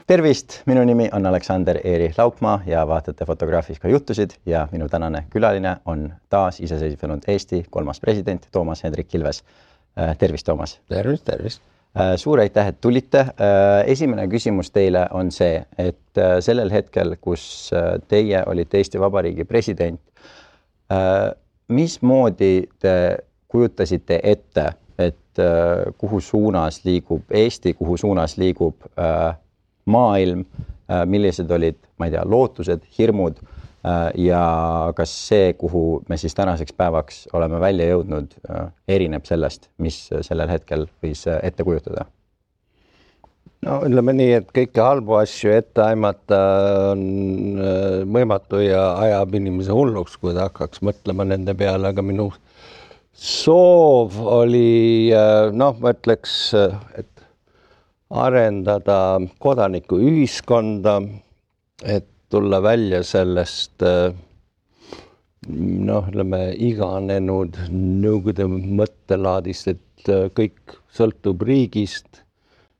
Tervist, minu nimi on Aleksander Eeri Laupmaa ja vaatate Fotograafika juttusid ja minu tänane külaline on taas iseseisvunud Eesti 3. president Toomas Hendrik Ilves. Tervist, Toomas! Tervist! Suur aitäh, et tulite. Esimene küsimus teile on see, et sellel hetkel, kus teie olite Eesti Vabariigi president, mismoodi te kujutasite ette, et kuhu suunas liigub Eesti, kuhu suunas liigub maailm, millised olid, ma ei tea, lootused, hirmud ja kas see, kuhu me siis tänaseks päevaks oleme välja jõudnud, erineb sellest, mis sellel hetkel võis ette kujutada? No ütleme nii, et kõike halbu asju ette aimata on võimatu ja ajab inimese hulluks, kui ta hakkaks mõtlema nende peale, aga minu soov oli, ma ütleks, et arendada kodanikuühiskonda, et tulla välja sellest iganenud nõukogude mõttelaadist, et kõik sõltub riigist,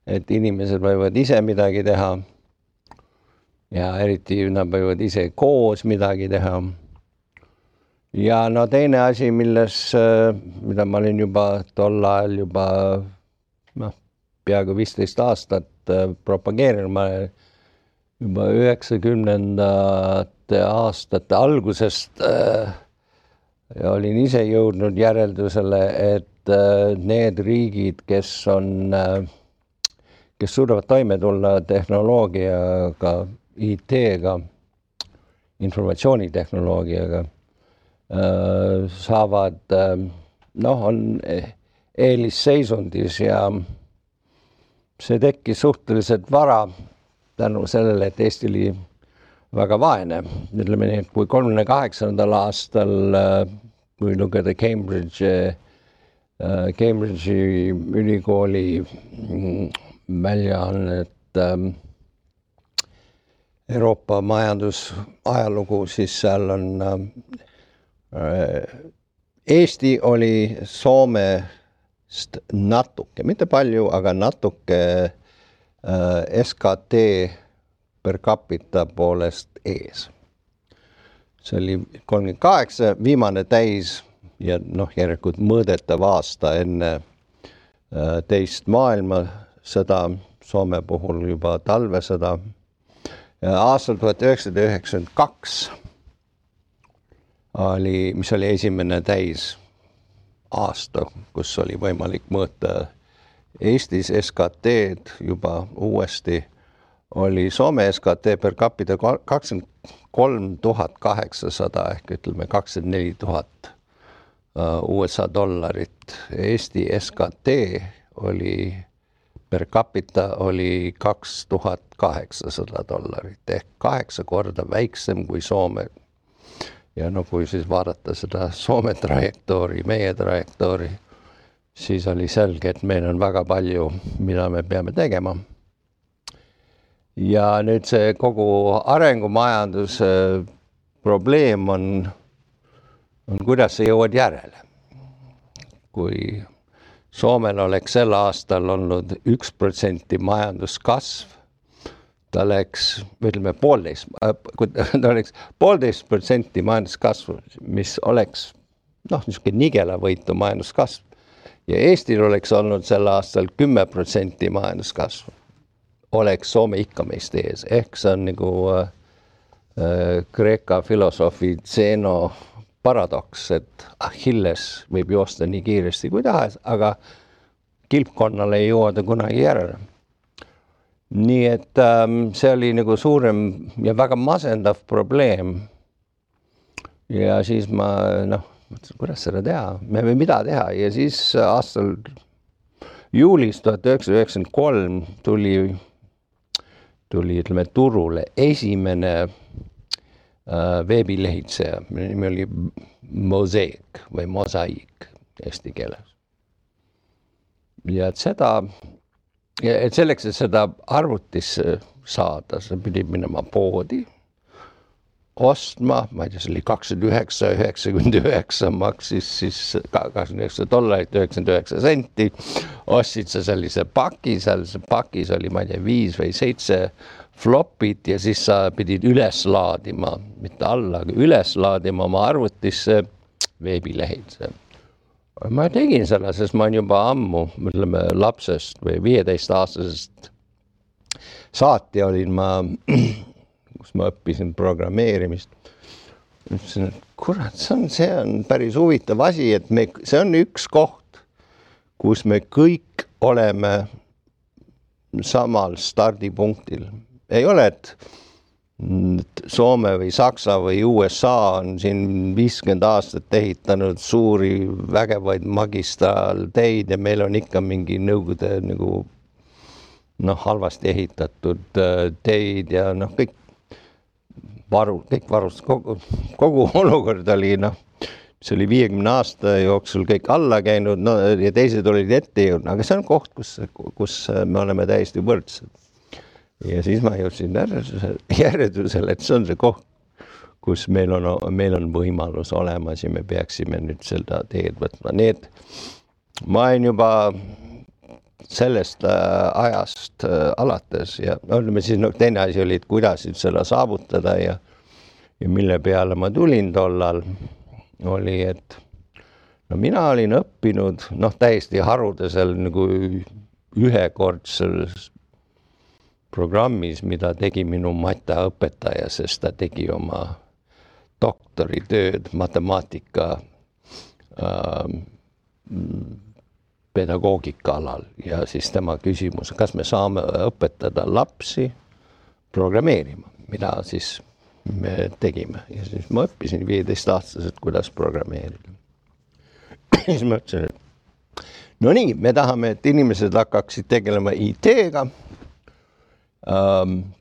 et inimesed võivad ise midagi teha ja eriti nad võivad ise koos midagi teha. Ja teine asi, mida ma olin juba tol ajal peaaegu 15 aastat propageerinud, ma juba 90ndate aastate algusest olin ise jõudnud järeldusele, et need riigid, kes suudavad toime tulla tehnoloogiaga, IT-ga, informatsioonitehnoloogiaga, saavad, on eelisseisundis ja see tekkis suhteliselt vara tänu sellele, et Eesti oli väga vaene. Ütleme nii, et kui 38. aastal, kui lugeda Cambridge'i ülikooli väljaannet Euroopa majandusajalugu, siis seal on Eesti oli Soomest natuke, mitte palju, aga natuke SKT per capita poolest ees. See oli 38, viimane täis ja järelikult mõõdetav aasta enne teist maailmasõda, Soome puhul juba talvesõda. Aastal 1992 mis oli esimene täis aasta, kus oli võimalik mõõta Eestis SKT-d juba uuesti, oli Soome SKT per capita 23 800 ehk ütleme 24 000 USA dollarit. Eesti SKT oli per capita oli 2800 dollarit ehk 8 korda väiksem kui Soome. Ja kui siis vaadata seda Soome trajektoori, meie trajektoori, siis oli selge, et meil on väga palju, mida me peame tegema. Ja nüüd see kogu arengumajanduse probleem on kuidas sa jõuad järele. Kui Soomel oleks sel aastal olnud 1% majanduskasv, ta oleks, ütleme, 1,5% majanduskasvu, mis oleks niisugune nigelavõitu majanduskasv. Ja Eestil oleks olnud sel aastal 10% majanduskasvu. Oleks Soome ikka meist ees. Ehk see on nagu Kreeka filosoofi Zeno paradoks, et Achilles võib joosta nii kiiresti kui tahes, aga kilpkonnale ei jõuda kunagi järele. Nii et see oli nagu suurem ja väga masendav probleem. Ja siis ma, kuidas seda teha? Me võime mida teha? Ja siis aastal juulis 1993 tuli ütleme, turule esimene veebilehitseja. Minu nimi oli Mosaic või Mosaic eesti keeles. Ja et selleks, et seda arvutisse saada, sa pidid minema poodi, ostma, ma ei tea, see oli 29,99 maksis siis $29, 99 senti. Ostsid sa sellise paki, seal pakis oli, ma ei tea, 5 või 7 flopid ja siis sa pidid üles laadima, mitte alla, aga üles laadima oma arvutisse veebilehed. Ma tegin selle, sest ma olen juba ammu, ütleme, lapsest või 15-aastasest saati olin ma, kus ma õppisin programmeerimist. Ütlesin, et kurat, see on päris huvitav asi, et see on üks koht, kus me kõik oleme samal stardipunktil. Ei ole, et Soome või Saksa või USA on siin 50 aastat ehitanud suuri vägevaid magistraalteid ja meil on ikka mingi nõukogude nagu halvasti ehitatud teid ja kõik varust, kogu olukord oli see oli 50 aasta jooksul kõik alla käinud ja teised olid ette jõudnud, aga see on koht, kus me oleme täiesti võrdsed. Ja siis ma jõudsin järeldusele, et see on see koht, kus meil on võimalus olemas ja me peaksime nüüd seda teed võtma. Nii et ma olen juba sellest ajast alates ja oleme siis teine asi oli, et kuidas seda saavutada ja mille peale ma tulin tollal oli, et mina olin õppinud täiesti harudesel nagu ühekordses programmis, mida tegi minu matemaõpetaja, sest ta tegi oma doktoritööd matemaatika pedagoogika alal ja siis tema küsimus, kas me saame õpetada lapsi programmeerima, mida siis me tegime. Ja siis ma õppisin 15-aastaselt, kuidas programmeerida. Siis ma ütlesin, et no nii, me tahame, et inimesed hakkaksid tegelema IT-ga,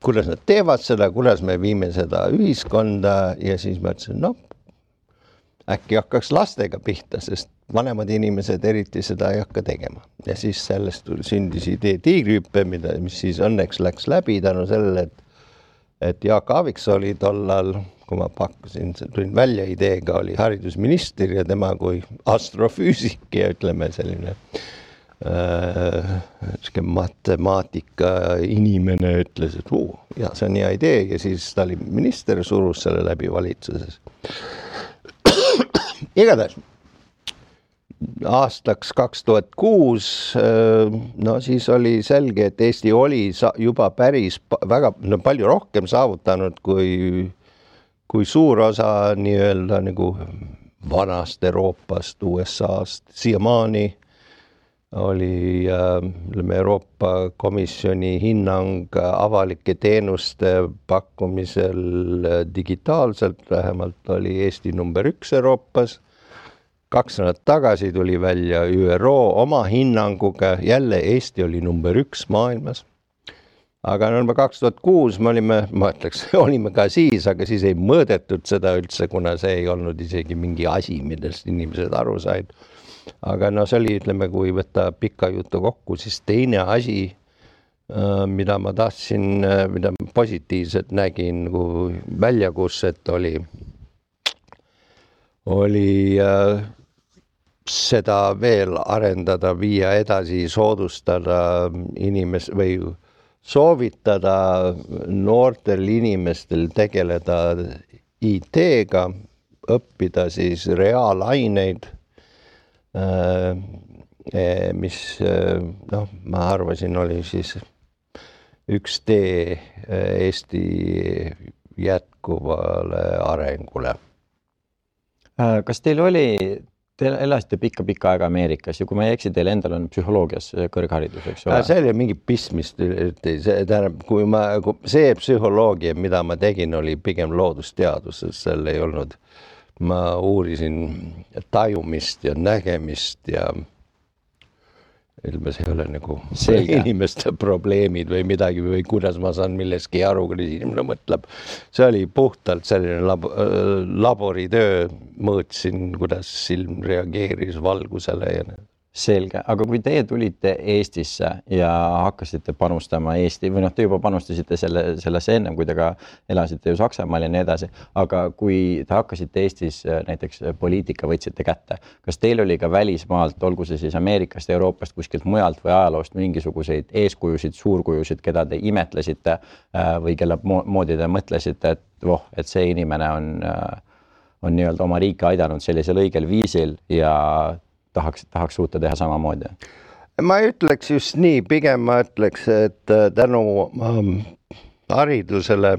kuidas nad teevad seda, kuidas me viime seda ühiskonda ja siis ma ütlesin, äkki hakkaks lastega pihta, sest vanemad inimesed eriti seda ei hakka tegema. Ja siis sellest sündis idee tiigrihüppe, mis siis õnneks läks läbi tänu sellele, et Jaak Aaviksoo oli tollal, kui ma pakkusin, tulin välja ideega, oli haridusminister ja tema kui astrofüüsik ja ütleme selline matemaatika inimene ütles, et ja see on hea idee ja siis ta oli minister, surus selle läbi valitsuses. Igatahes aastaks 2006, siis oli selge, et Eesti oli juba päris väga palju rohkem saavutanud kui suur osa nii-öelda nagu vanast Euroopast, USA-st. Siiamaani oli Euroopa Komisjoni hinnang avalike teenuste pakkumisel digitaalselt, vähemalt oli Eesti number 1 Euroopas. 2 nädalat tagasi tuli välja ÜRO oma hinnanguga, jälle Eesti oli number 1 maailmas. Aga 2006 olime ka siis, aga siis ei mõõdetud seda üldse, kuna see ei olnud isegi mingi asi, millest inimesed aru said. Aga see oli, ütleme, kui võtta pikka jutu kokku, siis teine asi, mida ma tahtsin, mida positiivselt nägin, kui väljakutset oli seda veel arendada, viia edasi, soodustada või soovitada noortel inimestel tegeleda IT-ga, õppida siis reaalaineid, mis ma arvasin oli siis üks tee Eesti jätkuvale arengule. Kas teil elasite pikka aega Ameerikas ja kui ma ei eksi, teil endal on psühholoogias kõrgharidus, eks ole? See oli mingi pistmist, see psühholoogia, mida ma tegin, oli pigem loodusteadus, seal ei olnud. Ma uurisin tajumist ja nägemist ja ilmes ei ole nagu inimeste probleemid või midagi või kuidas ma saan milleski aru, kui inimene mõtleb. See oli puhtalt selline laboritöö, mõõtsin, kuidas silm reageeris valgusele ja Selge, aga kui teie tulite Eestisse ja hakkasite panustama Eesti või noh, te juba panustasite sellesse ennem, kui te ka elasite ju Saksamaal ja nii edasi, aga kui te hakkasite Eestis näiteks poliitika võtsite kätte, kas teil oli ka välismaalt, olgu see siis Ameerikast, Euroopast, kuskilt mujalt või ajaloost mingisuguseid eeskujusid, suurkujusid, keda te imetlesite või kelle moodi te mõtlesite, et see inimene on nii-öelda oma riiki aidanud sellisel õigel viisil ja tahaks suuta teha samamoodi? Ma ütleks just nii, pigem ma ütleks, et tänu haridusele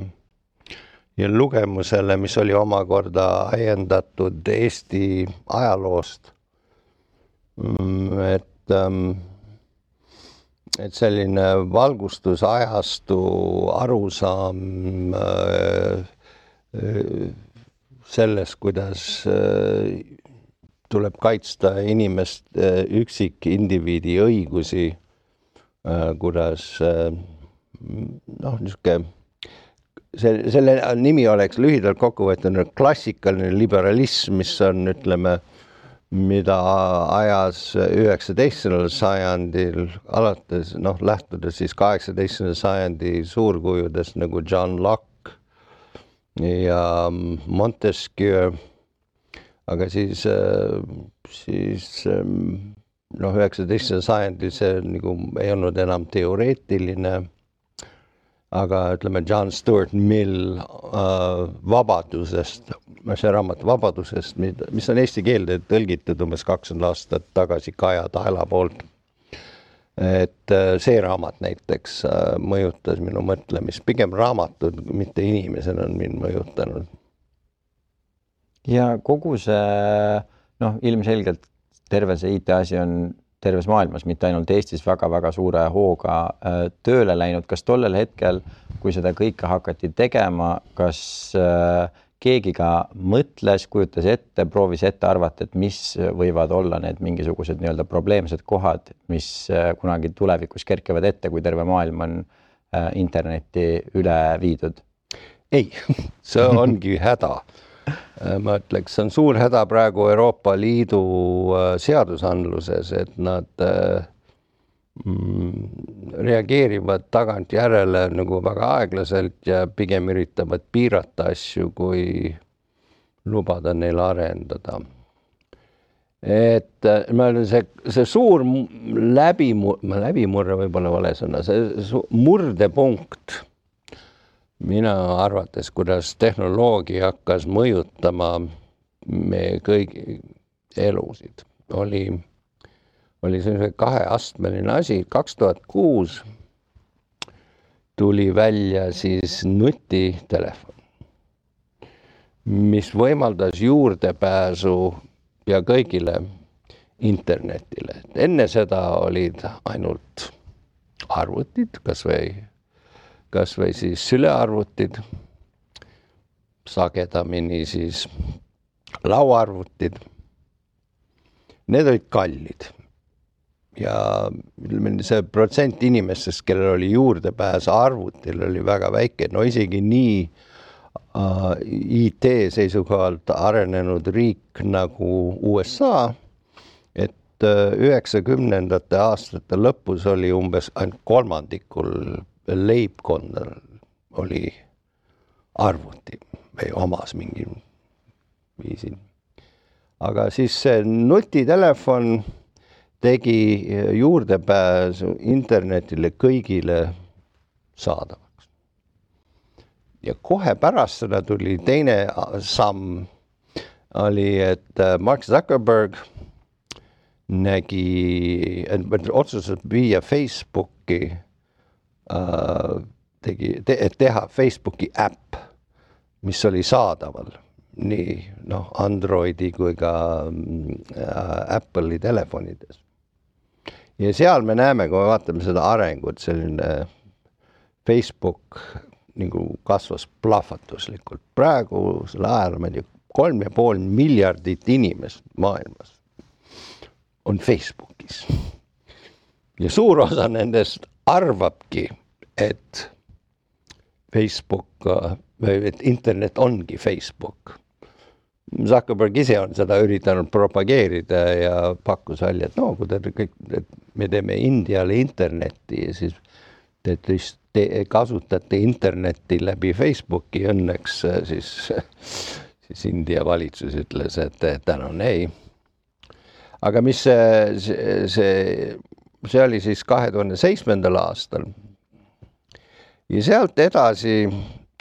ja lugemusele, mis oli omakorda ajendatud Eesti ajaloost, et selline valgustusajastu arusaam sellest, kuidas tuleb kaitsta inimest, üksikindiviidi õigusi, kuidas selle nimi oleks lühidalt kokkuvõtnud klassikaline liberalism, mis on, ütleme, mida ajas 19. sajandil alates, lähtudes siis 18. sajandi suurkujudest nagu John Locke ja Montesquieu. Aga siis 19. sajandil see nagu ei olnud enam teoreetiline, aga ütleme John Stuart Mill vabadusest, see raamat vabadusest, mis on eesti keelde tõlgitud umbes 20 aastat tagasi Kaja Taela poolt. Et see raamat näiteks mõjutas minu mõtlemist, pigem raamatud, mitte inimesena on mind mõjutanud. Ja kogu see, ilmselgelt terve see IT-asi on terves maailmas, mitte ainult Eestis väga-väga suure hooga tööle läinud. Kas tollel hetkel, kui seda kõike hakati tegema, kas keegi ka mõtles, kujutas ette, proovis ette arvata, et mis võivad olla need mingisugused nii-öelda probleemsed kohad, mis kunagi tulevikus kerkivad ette, kui terve maailm on internetti üle viidud? Ei, see ongi häda. Ma ütleks, see on suur häda praegu Euroopa Liidu seadusandluses, et nad reageerivad tagant järele nagu väga aeglaselt ja pigem üritavad piirata asju, kui lubada neil arendada. Et ma olen see suur läbimurre võib-olla vale sõna, see murdepunkt mina arvates, kuidas tehnoloogia hakkas mõjutama meie kõigi elusid, oli selline kaheastmeline asi. 2006 tuli välja siis nutitelefon, mis võimaldas juurdepääsu ja kõigile internetile. Enne seda olid ainult arvutid, kas või siis sülearvutid, sagedamini siis lauaarvutid. Need olid kallid ja see protsent inimestest, kellel oli juurdepääs arvutil, oli väga väike. No isegi nii IT seisukohalt arenenud riik nagu USA, et 90. aastate lõpus oli umbes ainult kolmandikul leibkonnal oli arvuti või omas mingi viisil. Aga siis see nutitelefon tegi juurdepääsu internetile kõigile saadavaks. Ja kohe pärast seda tuli teine samm, oli, et Mark Zuckerberg otsustas viia Facebooki teha Facebooki äpp, mis oli saadaval nii Androidi kui ka Apple'i telefonides. Ja seal me näeme, kui me vaatame seda arengut, selline Facebook nagu kasvas plahvatuslikult. Praegu selle ajal 3,5 miljardit inimest maailmas on Facebookis. Ja suur osa nendest arvabki, et Facebook või et internet ongi Facebook. Zuckerberg ise on seda üritanud propageerida ja pakkus välja, et no, kui et me teeme Indiale internetti ja siis te kasutate internetti läbi Facebooki õnneks, siis India valitsus ütles, et tänan ei. Aga mis see oli siis 2007. aastal ja sealt edasi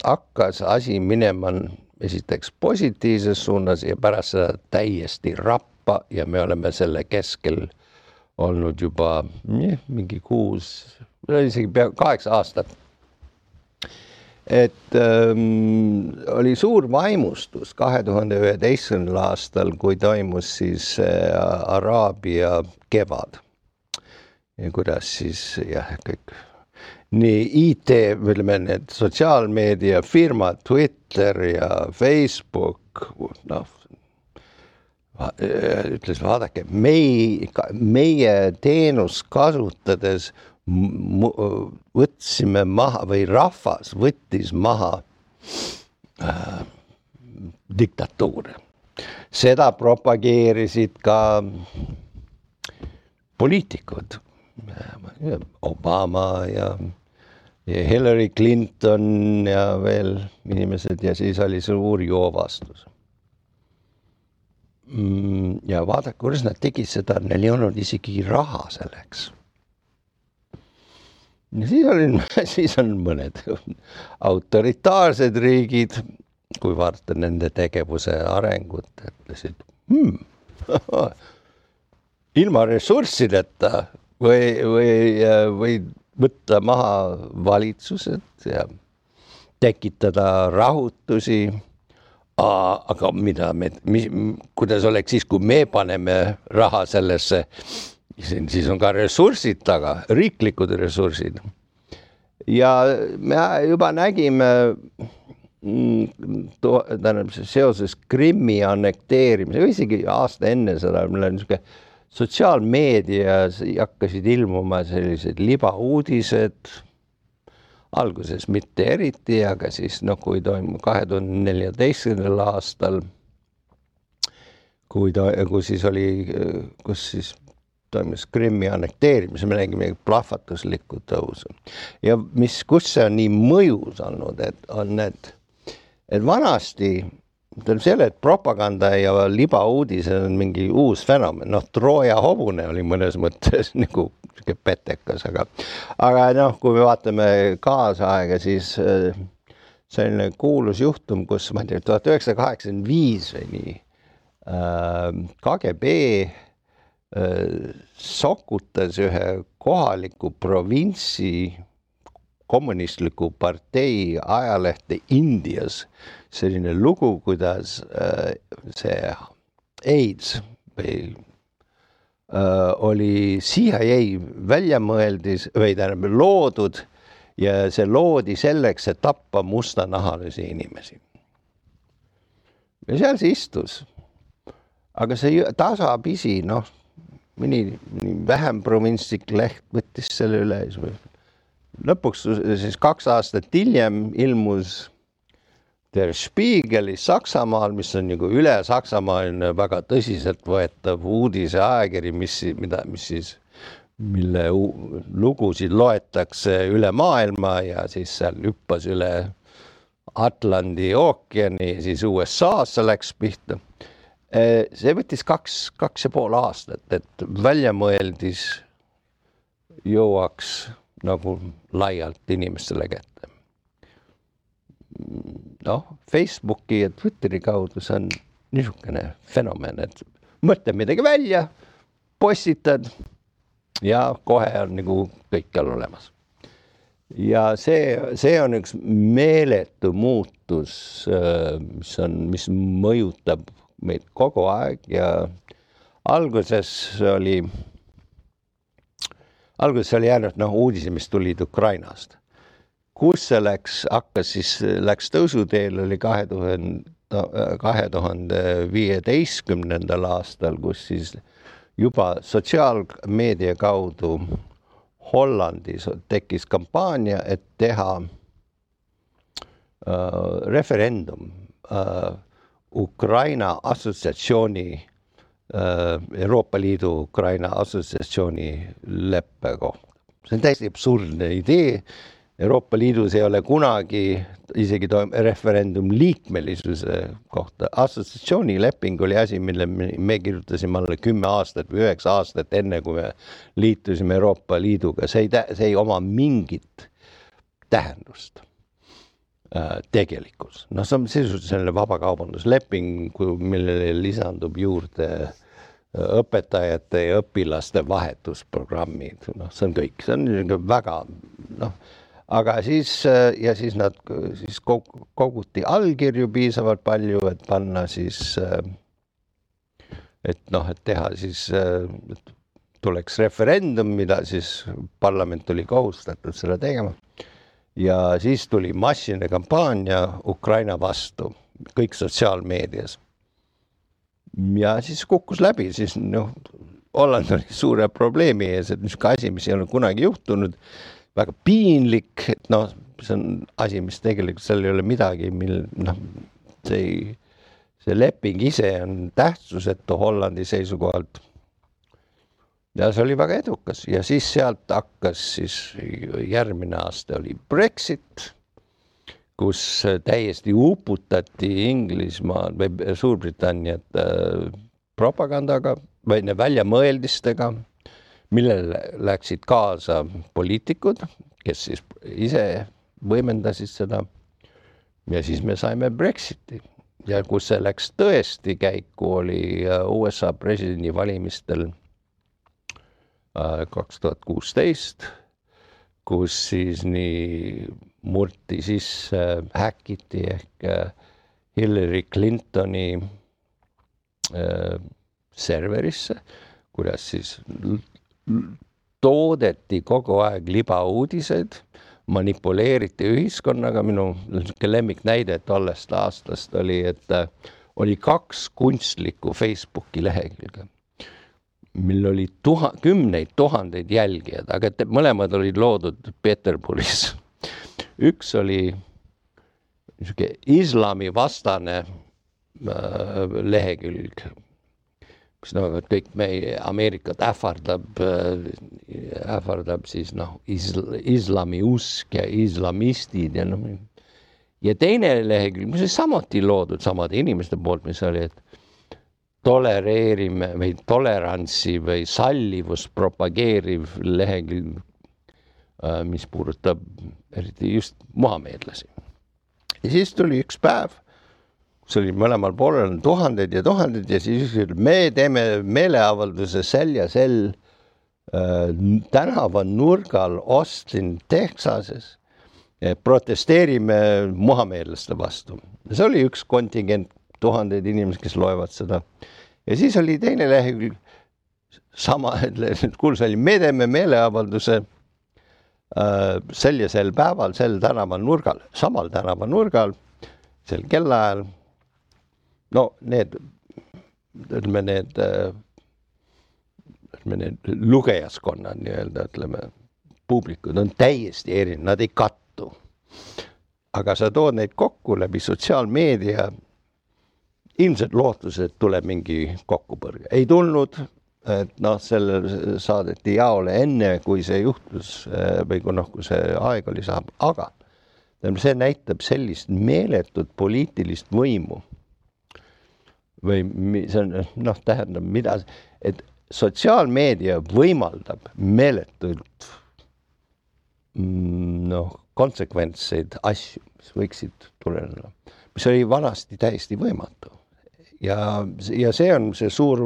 hakkas asi minema esiteks positiivses suunas ja pärast seda täiesti rappa ja me oleme selle keskel olnud juba mingi 6, isegi pea 8 aastat. Et oli suur vaimustus 2011. aastal, kui toimus siis Araabia kevad. Ja kuidas siis kõik nii IT, ütleme need sotsiaalmeedia firmad, Twitter ja Facebook, ütles, vaadake, meie teenust kasutades võtsime maha või rahvas võttis maha diktatuure. Seda propageerisid ka poliitikud, Obama ja Hillary Clinton ja veel inimesed ja siis oli suur joovastus. Ja vaadake, kuidas nad tegid seda, neil ei olnud isegi raha selleks. Ja siis on mõned autoritaarsed riigid, kui vaadata nende tegevuse arengut, ütlesid, ilma ressurssideta või võtta maha valitsused ja tekitada rahutusi, aga kuidas oleks siis, kui me paneme raha sellesse, siis on ka ressursid taga, riiklikud ressursid. Ja me juba nägime seoses Krimmi annekteerimisega, isegi aasta enne seda, meil on niisugune sotsiaalmeedias hakkasid ilmuma sellised libauudised, alguses mitte eriti, aga siis kui toimub 2014. aastal, kus siis toimus Krimmi annekteerimise, me nägime plahvatuslikku tõusu. Ja kus see on nii mõjus olnud, et vanasti selle, et propaganda ja libauudised on mingi uus fenomen. Trooja hobune oli mõnes mõttes nagu petekas, aga kui me vaatame kaasaega, siis selline kuulus juhtum, kus 1985 või nii KGB sokutas ühe kohaliku provintsi kommunistliku partei ajalehte Indias selline lugu, kuidas see AIDS või oli CIA väljamõeldis või loodud ja see loodi selleks, et tappa mustanahalisi inimesi. Ja seal see istus. Aga see tasapisi, mõni vähem provintslik leht võttis selle üle. Lõpuks siis 2 aastat hiljem ilmus Der Spiegelis Saksamaal, mis on nagu üle Saksamaaline väga tõsiselt võetav uudise ajakiri, mille lugusid loetakse üle maailma ja siis seal hüppas üle Atlandi ookeani, siis USA-sse läks pihta. See võttis 2,5 aastat, et väljamõeldis jõuaks nagu laialt inimestele kätte. Facebooki ja Twitteri kaudu see on niisugune fenomen, et mõtle midagi välja, postitad ja kohe on nagu kõikjal olemas. Ja see on üks meeletu muutus, mis mõjutab meid kogu aeg ja alguses oli jäänud uudisi, mis tulid Ukrainast. Kus see läks tõusuteel oli 2015. aastal, kus siis juba sotsiaalmeedia kaudu Hollandis tekkis kampaania, et teha referendum Ukraina assotsiatsiooni, Euroopa Liidu Ukraina assotsiatsiooni leppe kohta. See on täiesti absurdne idee. Euroopa Liidus ei ole kunagi isegi referendum liikmelisuse kohta. Assotsiatsiooni leping oli asi, mille me kirjutasime alla 10 aastat või 9 aastat enne, kui me liitusime Euroopa Liiduga. See ei oma mingit tähendust tegelikult. No see on sisuliselt selline vabakaubandusleping, millele lisandub juurde õpetajate ja õpilaste vahetusprogrammid. No, see on kõik. See on väga... Aga siis nad koguti allkirju piisavalt palju, et panna siis, et teha siis, et tuleks referendum, mida siis parlament oli kohustatud seda tegema. Ja siis tuli massiline kampaania Ukraina vastu, kõik sotsiaalmeedias. Ja siis kukkus läbi, siis Holland oli suure probleemi ees, et niisugune asi, mis ei ole kunagi juhtunud, väga piinlik, et see on asi, mis tegelikult seal ei ole midagi, see leping ise on tähtsusetu Hollandi seisukohalt. Ja see oli väga edukas ja siis sealt hakkas siis järgmine aasta oli Brexit, kus täiesti uputati Inglismaa või Suurbritanniat propagandaga või väljamõeldistega, millele läksid kaasa poliitikud, kes siis ise võimendasid seda. Ja siis me saime Brexiti. Ja kus see läks tõesti käiku, oli USA presidendi valimistel 2016, kus siis nii murti sisse, häkiti ehk Hillary Clintoni serverisse, kuidas siis toodeti kogu aeg libauudised, manipuleeriti ühiskonnaga. Minu lemmiknäide tollest aastast oli, et oli 2 kunstlikku Facebooki lehekülge, mil oli kümneid tuhandeid jälgijad, aga mõlemad olid loodud Peterburis. Üks oli islami vastane lehekülg, kus kõik meie Ameerikat ähvardab siis islami usk ja islamistid ja teine lehekülg, mis oli samuti loodud samade inimeste poolt, mis oli, et tolereerime või tolerantsi või sallivust propageeriv lehekülg, mis puudutab eriti just muhameedlasi. Ja siis tuli üks päev, see oli mõlemal poolel tuhanded ja siis me teeme meeleavalduse sel ja sel tänava nurgal Austin, Texases, protesteerime muhameedlaste vastu. See oli üks kontingent, tuhanded inimesed, kes loevad seda. Ja siis oli teine lehekülg, me teeme meeleavalduse sel ja sel päeval, sel tänava nurgal, samal tänava nurgal, sel kellaajal. Need lugejaskonnad, publikud on täiesti erinevad, nad ei kattu. Aga sa tood neid kokku läbi sotsiaalmeedia, ilmselt lootused tuleb mingi kokkupõrge. Ei tulnud, et selle saadeti jaole enne, kui see juhtus või kui see aeg oli saab, aga see näitab sellist meeletut poliitilist võimu. Või see on, tähendab, et sotsiaalmeedia võimaldab meeletult konsekventseid asju, mis võiksid tuleneda, mis oli vanasti täiesti võimatu. Ja see on see suur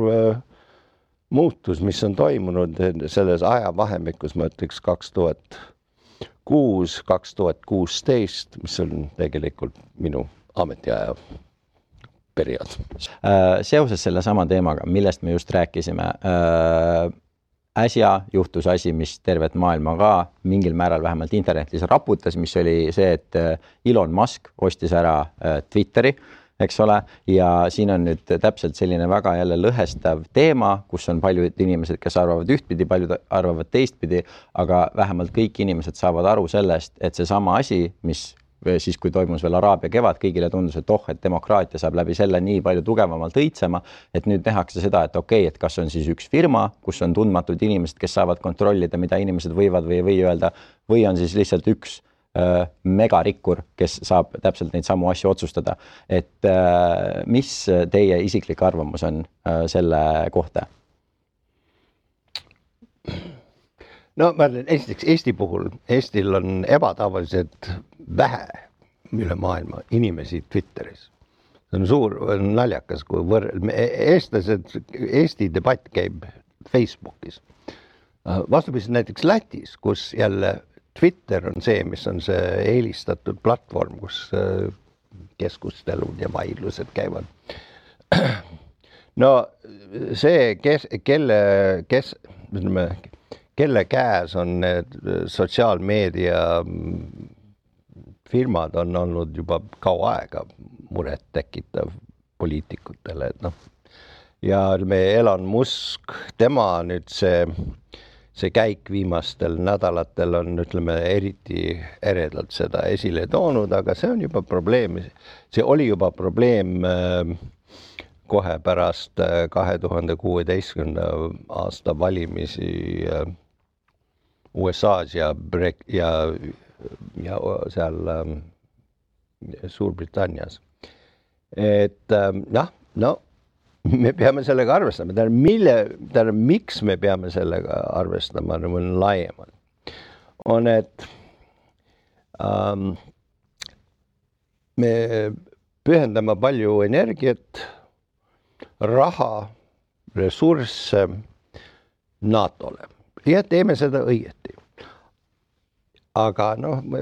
muutus, mis on toimunud selles ajavahemikus, ma ütleks 2006-2016, mis on tegelikult minu ametiaja periood. Seoses selle sama teemaga, millest me just rääkisime, äsja juhtus asi, mis tervet maailma ka mingil määral vähemalt internetis raputas, mis oli see, et Elon Musk ostis ära Twitteri, eks ole, ja siin on nüüd täpselt selline väga jälle lõhestav teema, kus on paljud inimesed, kes arvavad ühtpidi, paljud arvavad teistpidi, aga vähemalt kõik inimesed saavad aru sellest, et see sama asi, mis siis kui toimus veel Araabia kevad, kõigile tundus, et et demokraatia saab läbi selle nii palju tugevamalt õitsema, et nüüd nähakse seda, et okei, et kas on siis üks firma, kus on tundmatud inimesed, kes saavad kontrollida, mida inimesed võivad või ei või öelda, või on siis lihtsalt üks megarikkur, kes saab täpselt neid samu asju otsustada. Et mis teie isiklik arvamus on selle kohta? No ma ütlen, esiteks Eesti puhul, Eestil on ebatavaliselt vähe üle maailma inimesi Twitteris. See on suur, naljakas, kui eestlased, Eesti debatt käib Facebookis. Vastupidi näiteks Lätis, kus jälle Twitter on see, mis on see eelistatud platvorm, kus keskustelud ja vaidlused käivad. No see, kelle käes on need sotsiaalmeedia firmad on olnud juba kaua aega muret tekitav poliitikutele. Ja Elon Musk, tema nüüd see käik viimastel nädalatel on, ütleme, eriti eredalt seda esile toonud, aga see on juba probleem. See oli juba probleem kohe pärast 2016. aasta valimisi USA's ja seal Suurbritannias. Et me peame sellega arvestama. Miks me peame sellega arvestama laiemalt? On, et me pühendame palju energiat, raha, ressursse NATO-le ja teeme seda õieti. Aga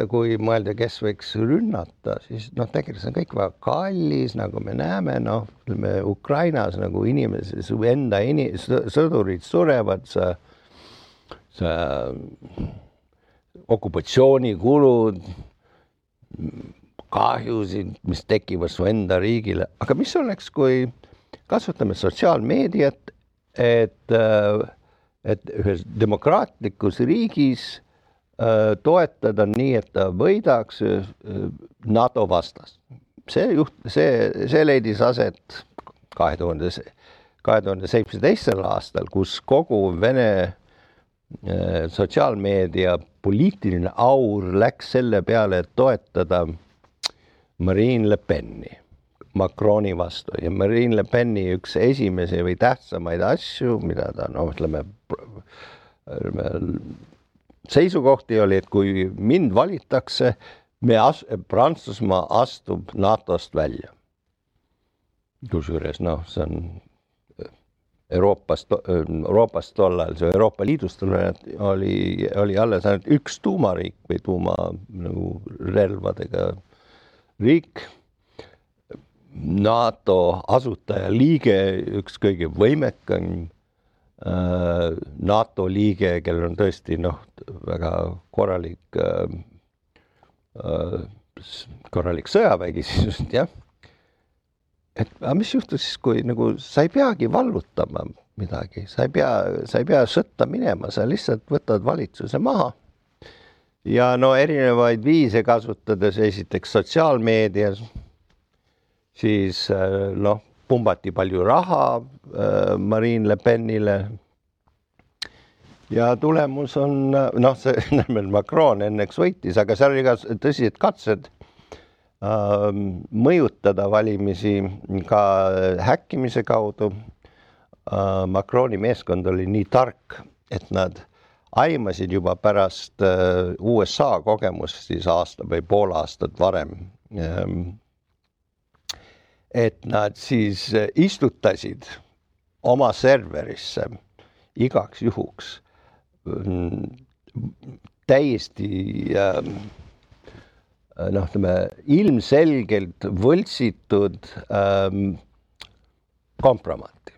kui mõelda, kes võiks rünnata, siis tegelikult on kõik väga kallis, nagu me näeme, Ukrainas nagu inimesed, enda sõdurid surevad, see okupatsioonikulud, kahjusid, mis tekivad su enda riigile. Aga mis oleks, kui kasutame sotsiaalmeediat, et ühes demokraatlikus riigis toetada nii, et ta võidaks NATO vastast. See leidis aset 2017. aastal, kus kogu Vene sotsiaalmeedia poliitiline aur läks selle peale, et toetada Marine Le Peni Macroni vastu. Ja Marine Le Peni üks esimesi või tähtsamaid asju, mida ta, seisukohti oli, et kui mind valitakse, Prantsusmaa astub NATOst välja. Kusjuures, see on Euroopast tollal, see Euroopa Liidust oli alles ainult üks tuumariik või tuumarelvadega riik. NATO asutaja liige, üks kõige võimekam NATO liige, kellel on tõesti väga korralik sõjavägi siis, jah. Et mis juhtus siis, kui sa ei peagi vallutama midagi, sa ei pea sõtta minema, sa lihtsalt võtad valitsuse maha. Ja erinevaid viise kasutades esiteks sotsiaalmeedias, siis pumbati palju raha Marine Le Penile ja tulemus on, see Macron enneks võitis, aga seal oli ka tõsised katsed mõjutada valimisi ka häkkimise kaudu. Macroni meeskond oli nii tark, et nad aimasid juba pärast USA kogemust siis aasta või pool aastat varem, et nad siis istutasid oma serverisse igaks juhuks täiesti ilmselgelt võltsitud kompromaati.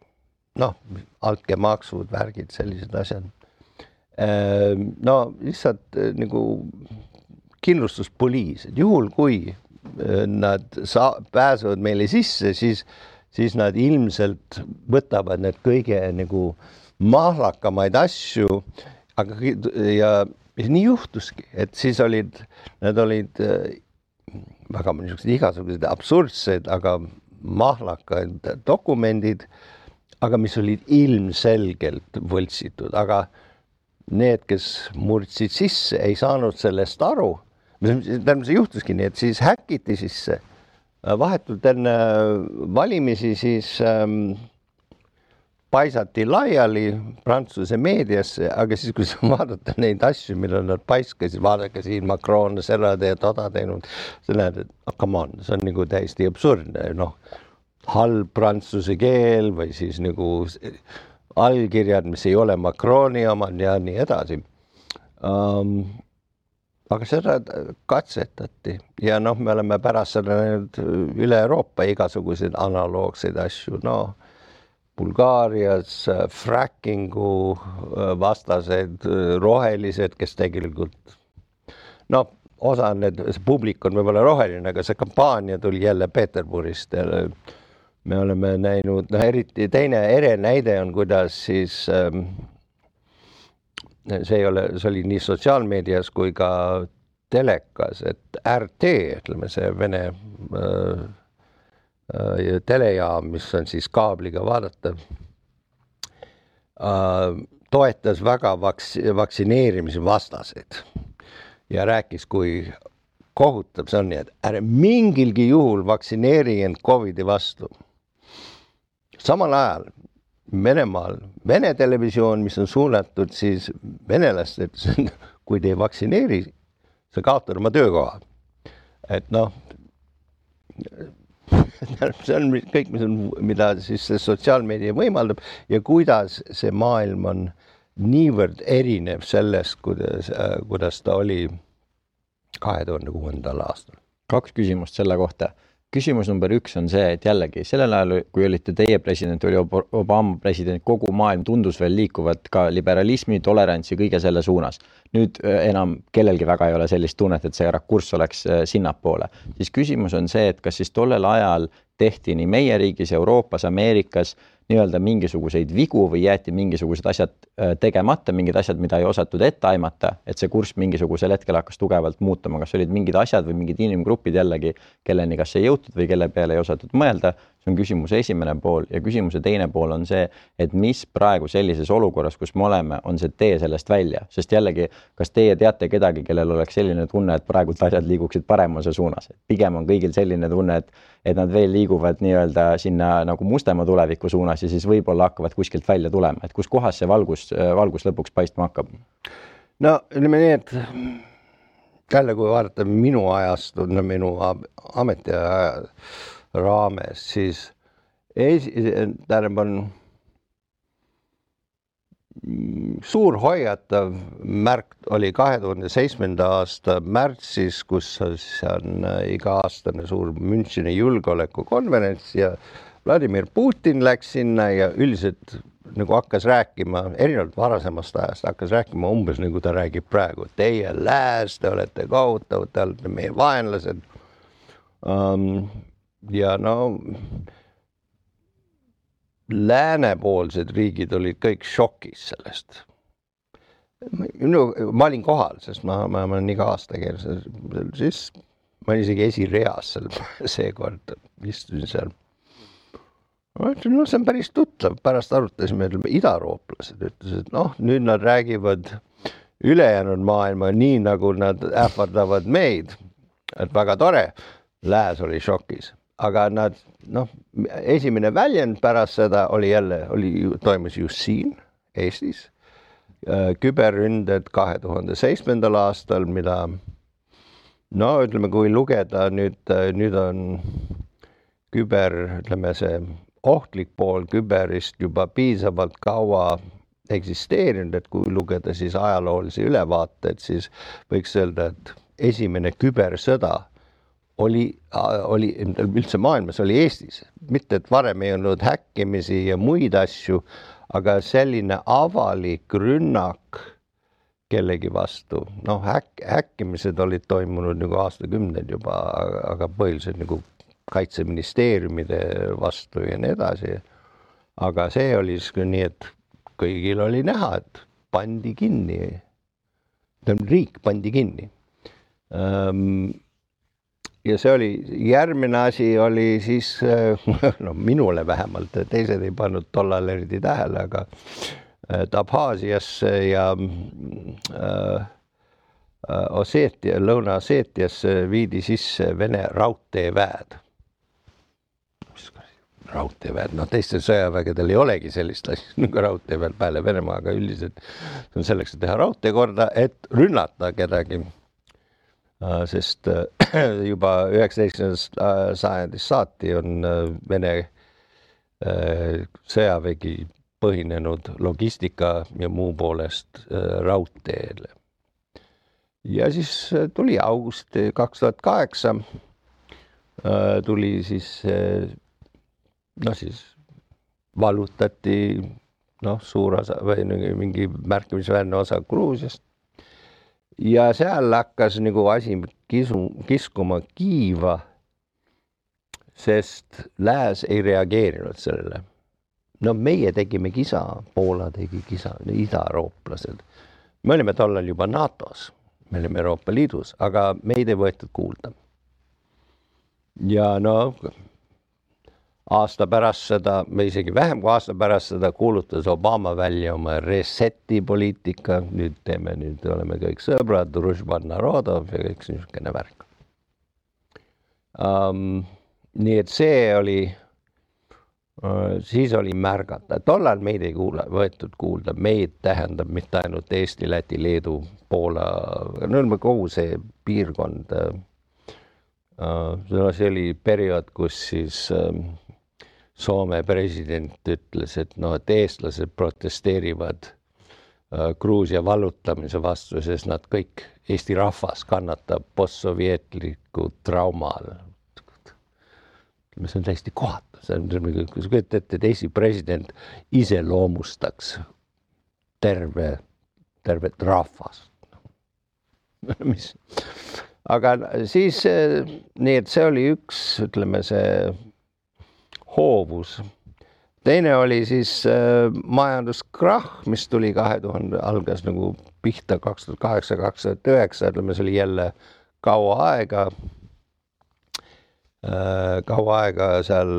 Altkäemaksud, värgid, sellised asjad. Lihtsalt nagu kindlustuspoliis, et juhul kui nad pääsevad meile sisse, siis nad ilmselt võtavad need kõige nagu mahlakamaid asju, aga ja nii juhtuski, et siis nad olid väga igasugused absurdsed, aga mahlakad dokumendid, aga mis olid ilmselgelt võltsitud, aga need, kes murdsid sisse, ei saanud sellest aru. Tähendab, see juhtuski nii, et siis häkiti sisse. Vahetult enne valimisi siis paisati laiali Prantsuse meediasse, aga siis, kui vaadata neid asju, millal nad paiskasid, vaadake siin Macron seda ja toda teinud, see näed, et come on, see on nagu täiesti absurdne, halb prantsuse keel või siis nagu allkirjad, mis ei ole Macroni omad ja nii edasi. Aga seda katsetati ja me oleme pärast seda üle Euroopa igasuguseid analoogseid asju, Bulgaarias frackingu vastased rohelised, kes tegelikult osa see publik on võib-olla roheline, aga see kampaania tuli jälle Peterburist. Me oleme näinud, eriti teine näide on, kuidas siis see oli nii sotsiaalmeedias kui ka telekas, et RT, ütleme see Vene telejaam, mis on siis kaabliga vaadatav, toetas väga vaktsineerimise vastaseid ja rääkis, kui kohutav see on, nii et ärge mingilgi juhul vaktsineeri end COVID-i vastu. Samal ajal Venemaal, Vene televisioon, mis on suunatud siis venelastelt, kui te ei vaktsineeri, sa kaotad oma töökoha. Et see on kõik, mida siis see sotsiaalmeedia võimaldab ja kuidas see maailm on niivõrd erinev sellest, kuidas ta oli 2006. aastal. 2 küsimust selle kohta. Küsimus number 1 on see, et jällegi sellel ajal, kui olite teie president, oli Obama president, kogu maailm tundus veel liikuvat ka liberalismi, tolerantsi, kõige selle suunas. Nüüd enam kellelgi väga ei ole sellist tunnet, et see rakurss oleks sinnapoole. Siis küsimus on see, et kas siis tollel ajal tehti nii meie riigis, Euroopas, Ameerikas nii-öelda mingisuguseid vigu või jäeti mingisugused asjad tegemata, mingid asjad, mida ei osatud ette aimata, et see kurss mingisugusel hetkel hakkas tugevalt muutuma. Kas olid mingid asjad või mingid inimgrupid jällegi, kelleni kas ei jõutud või kelle peale ei osatud mõelda? See on küsimuse esimene pool ja küsimuse teine pool on see, et mis praegu sellises olukorras, kus me oleme, on see tee sellest välja. Sest jällegi, kas teie teate kedagi, kellel oleks selline tunne, et praegu asjad liiguksid paremuse suunas? Pigem on kõigil selline tunne, et nad veel liiguvad nii-öelda sinna nagu mustema tuleviku suunas ja siis võib-olla hakkavad kuskilt välja tulema. Et kus kohas see valgus lõpuks paistma hakkab? No, ütleme nii, et jälle kui vaadata minu ajast, minu ametiaja raames, siis on suur hoiatav märk oli 2007. aasta märtsis, kus on iga-aastane suur Müncheni julgeolekukonverents ja Vladimir Putin läks sinna ja üldiselt nagu hakkas rääkima, erinevalt varasemast ajast, hakkas rääkima umbes nagu ta räägib praegu. Teie lääs, te olete kohutav, te olete meie vaenlased. Ja läänepoolsed riigid olid kõik šokis sellest. Ma olin kohal, sest ma olen iga aasta keeles, siis ma olin isegi esireas seal seekord, istusin seal. Ma ütlen, see on päris tuttav, pärast arutasime, idarooplased ütlesid, nüüd nad räägivad ülejäänud maailma nii, nagu nad ähvardavad meid, et väga tore, lääs oli šokis. Aga nad, esimene väljend pärast seda toimus just siin, Eestis, küberründed 2007. aastal, mida, ütleme, kui lugeda, nüüd on see ohtlik pool küberist juba piisavalt kaua eksisteerinud, et kui lugeda siis ajaloolisi ülevaateid, siis võiks öelda, et esimene kübersõda oli üldse maailmas, oli Eestis. Mitte, et varem ei olnud häkkimisi ja muid asju, aga selline avalik rünnak kellegi vastu. Häkkimised olid toimunud nagu aastakümneid juba, aga põhiliselt nagu kaitseministeeriumide vastu ja nii edasi. Aga see oli nii, et kõigil oli näha, et pandi kinni. Riik pandi kinni. ja see oli, järgmine asi oli siis, no minule vähemalt, teised ei pannud tollal eriti tähele, aga Abhaasiasse ja Osseetia, Lõuna-Osseetiasse viidi sisse Vene raudteeväed. Raudteeväed, no teistel sõjavägedel ei olegi sellist asja nagu raudteeväed peale Venemaa, aga üldiselt on selleks, et teha raudtee korda, et rünnata kedagi. Sest juba 19. sajandist saati on Vene sõjavägi põhinenud logistika ja muu poolest raudteele. Ja siis tuli august 2008, tuli siis, no siis vallutati suur osa või mingi märkimisväärne osa Gruusiast. Ja seal hakkas nagu asi kiskuma kiiva, sest lääs ei reageerinud sellele. No meie tegime kisa, Poola tegi kisa, ida-eurooplased. Me olime tollal juba NATOs, me olime Euroopa Liidus, aga meid ei võetud kuulda. Ja aasta pärast seda, või isegi vähem kui aasta pärast seda kuulutas Obama välja oma reseti poliitika. Nüüd oleme kõik sõbrad, Družban Narodov ja kõik niisugune värk. Nii et see oli, siis oli märgata. Tollal meid ei võetud kuulda. Meid tähendab mitte ainult Eesti, Läti, Leedu, Poola, kogu see piirkond. See oli periood, kus siis Soome president ütles, et eestlased protesteerivad Gruusia vallutamise vastu, sest nad kõik, Eesti rahvas kannatab postsovjetliku traumal. See on täiesti kohatu. Kui sa kütad ette, et Eesti president iseloomustaks tervet rahvast. Aga siis, nii et see oli üks, ütleme see hoovus. Teine oli siis majanduskrahh, mis tuli 2000, algas nagu pihta 2008-2009, ütleme see oli jälle kaua aega seal,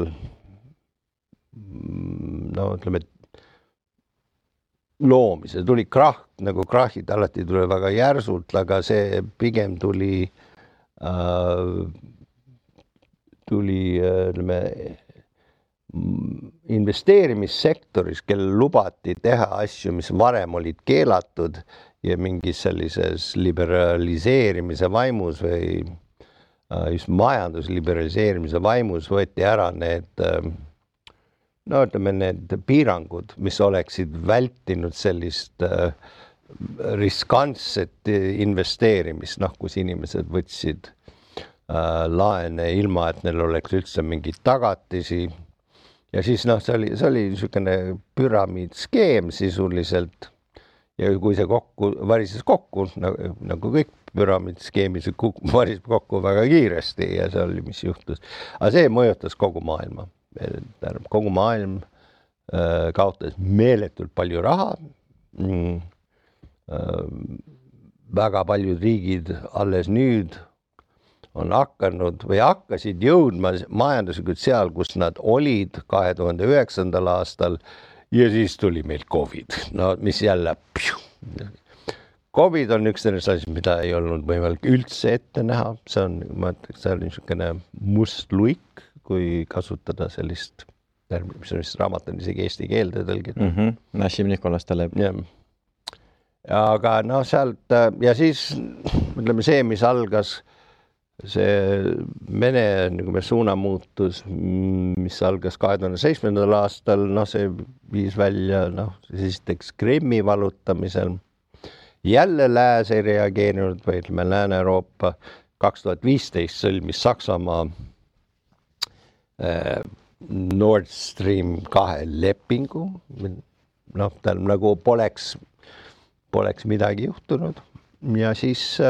ütleme, loomise. Tuli krahh, nagu krahhid alati tuli väga järsult, aga see pigem tuli, ütleme, investeerimissektoris, kellel lubati teha asju, mis varem olid keelatud ja mingis sellises liberaliseerimise vaimus või just majandusliberaliseerimise vaimus võeti ära need, ütleme, need piirangud, mis oleksid vältinud sellist riskantset investeerimist, kus inimesed võtsid laene ilma, et neil oleks üldse mingid tagatisi. Ja siis see oli niisugune püramiidskeem sisuliselt ja kui see varises kokku, nagu kõik püramiidskeemis varises kokku väga kiiresti ja see oli, mis juhtus. Aga see mõjutas kogu maailma. Kogu maailm kaotas meeletult palju raha. Väga paljud riigid alles nüüd on hakanud või hakkasid jõudma majanduslikult seal, kus nad olid 2009. aastal ja siis tuli meil COVID, mis jälle COVID on üks sellest asjast, mida ei olnud võimalik üldse ette näha. See on, ma ütleks, see on niisugune must luik, kui kasutada sellist termi, mis on vist raamat on isegi eesti keelde tõlgitud. Nassim Nicolas Taleb. Aga sealt ja siis ütleme see, mis algas see Vene suunamuutus, mis algas 2007. aastal, see viis välja, esiteks Krimmi vallutamisel. Jälle lääs ei reageerinud, või ütleme Lääne-Euroopa 2015 sõlmis Saksamaa Nord Stream 2 lepingu. Tal nagu poleks midagi juhtunud ja siis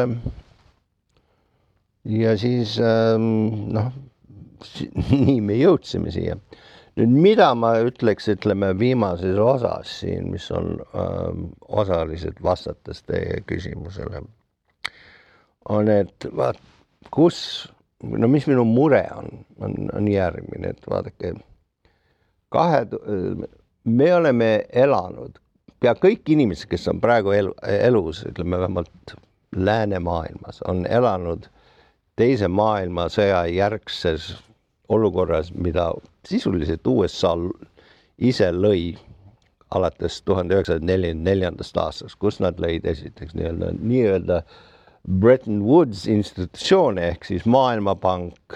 nii me jõudsime siia. Nüüd, mida ma ütleks, ütleme viimases osas siin, mis on osaliselt vastates teie küsimusele, on, et kus no mis minu mure on järgmine, et vaadake, me oleme elanud, pea kõik inimesed, kes on praegu elus, ütleme vähemalt läänemaailmas, on elanud teise maailmasõja järgses olukorras, mida sisuliselt USA ise lõi alates 1944. aastast, kus nad lõid esiteks nii-öelda Bretton Woods institutsioone ehk siis Maailmapank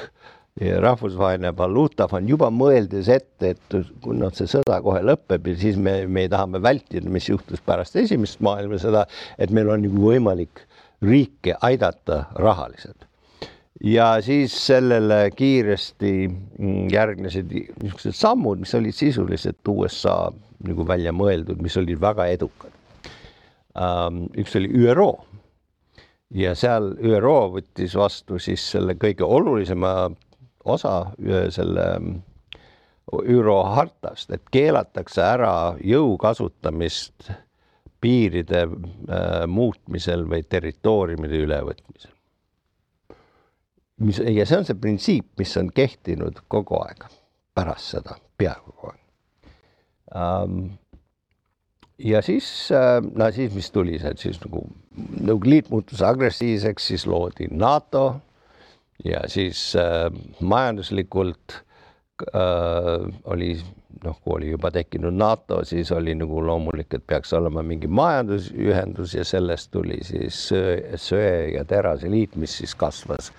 ja Rahvusvaheline Valuutafond juba mõeldes ette, et kui see sõda kohe lõpeb ja siis me tahame vältida, mis juhtus pärast esimest maailmasõda, et meil on nagu võimalik riike aidata rahaliselt. Ja siis sellele kiiresti järgnesid niisugused sammud, mis olid sisuliselt USA nagu välja mõeldud, mis olid väga edukad. Üks oli ÜRO ja seal ÜRO võttis vastu siis selle kõige olulisema osa selle ÜRO hartast, et keelatakse ära jõu kasutamist piiride muutmisel või territooriumide ülevõtmisel. Ja see on see printsiip, mis on kehtinud kogu aeg pärast seda, peaaegu kogu aeg. Ja siis mis tuli see, et siis nagu liit muutus agressiivseks, siis loodi NATO ja siis majanduslikult oli, kui oli juba tekkinud NATO, siis oli nagu loomulik, et peaks olema mingi majandusühendus ja sellest tuli siis söe- ja terase liit, mis siis kasvas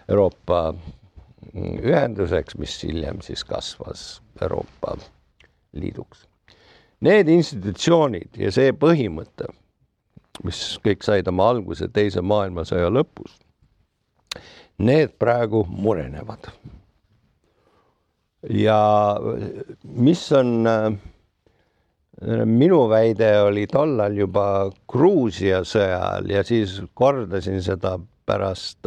Euroopa ühenduseks, mis hiljem siis kasvas Euroopa Liiduks. Need institutsioonid ja see põhimõte, mis kõik said oma alguse teise maailmasõja lõpus, need praegu murenevad. Ja mis on minu väide oli tollal juba Gruusia sõjal ja siis kordasin seda pärast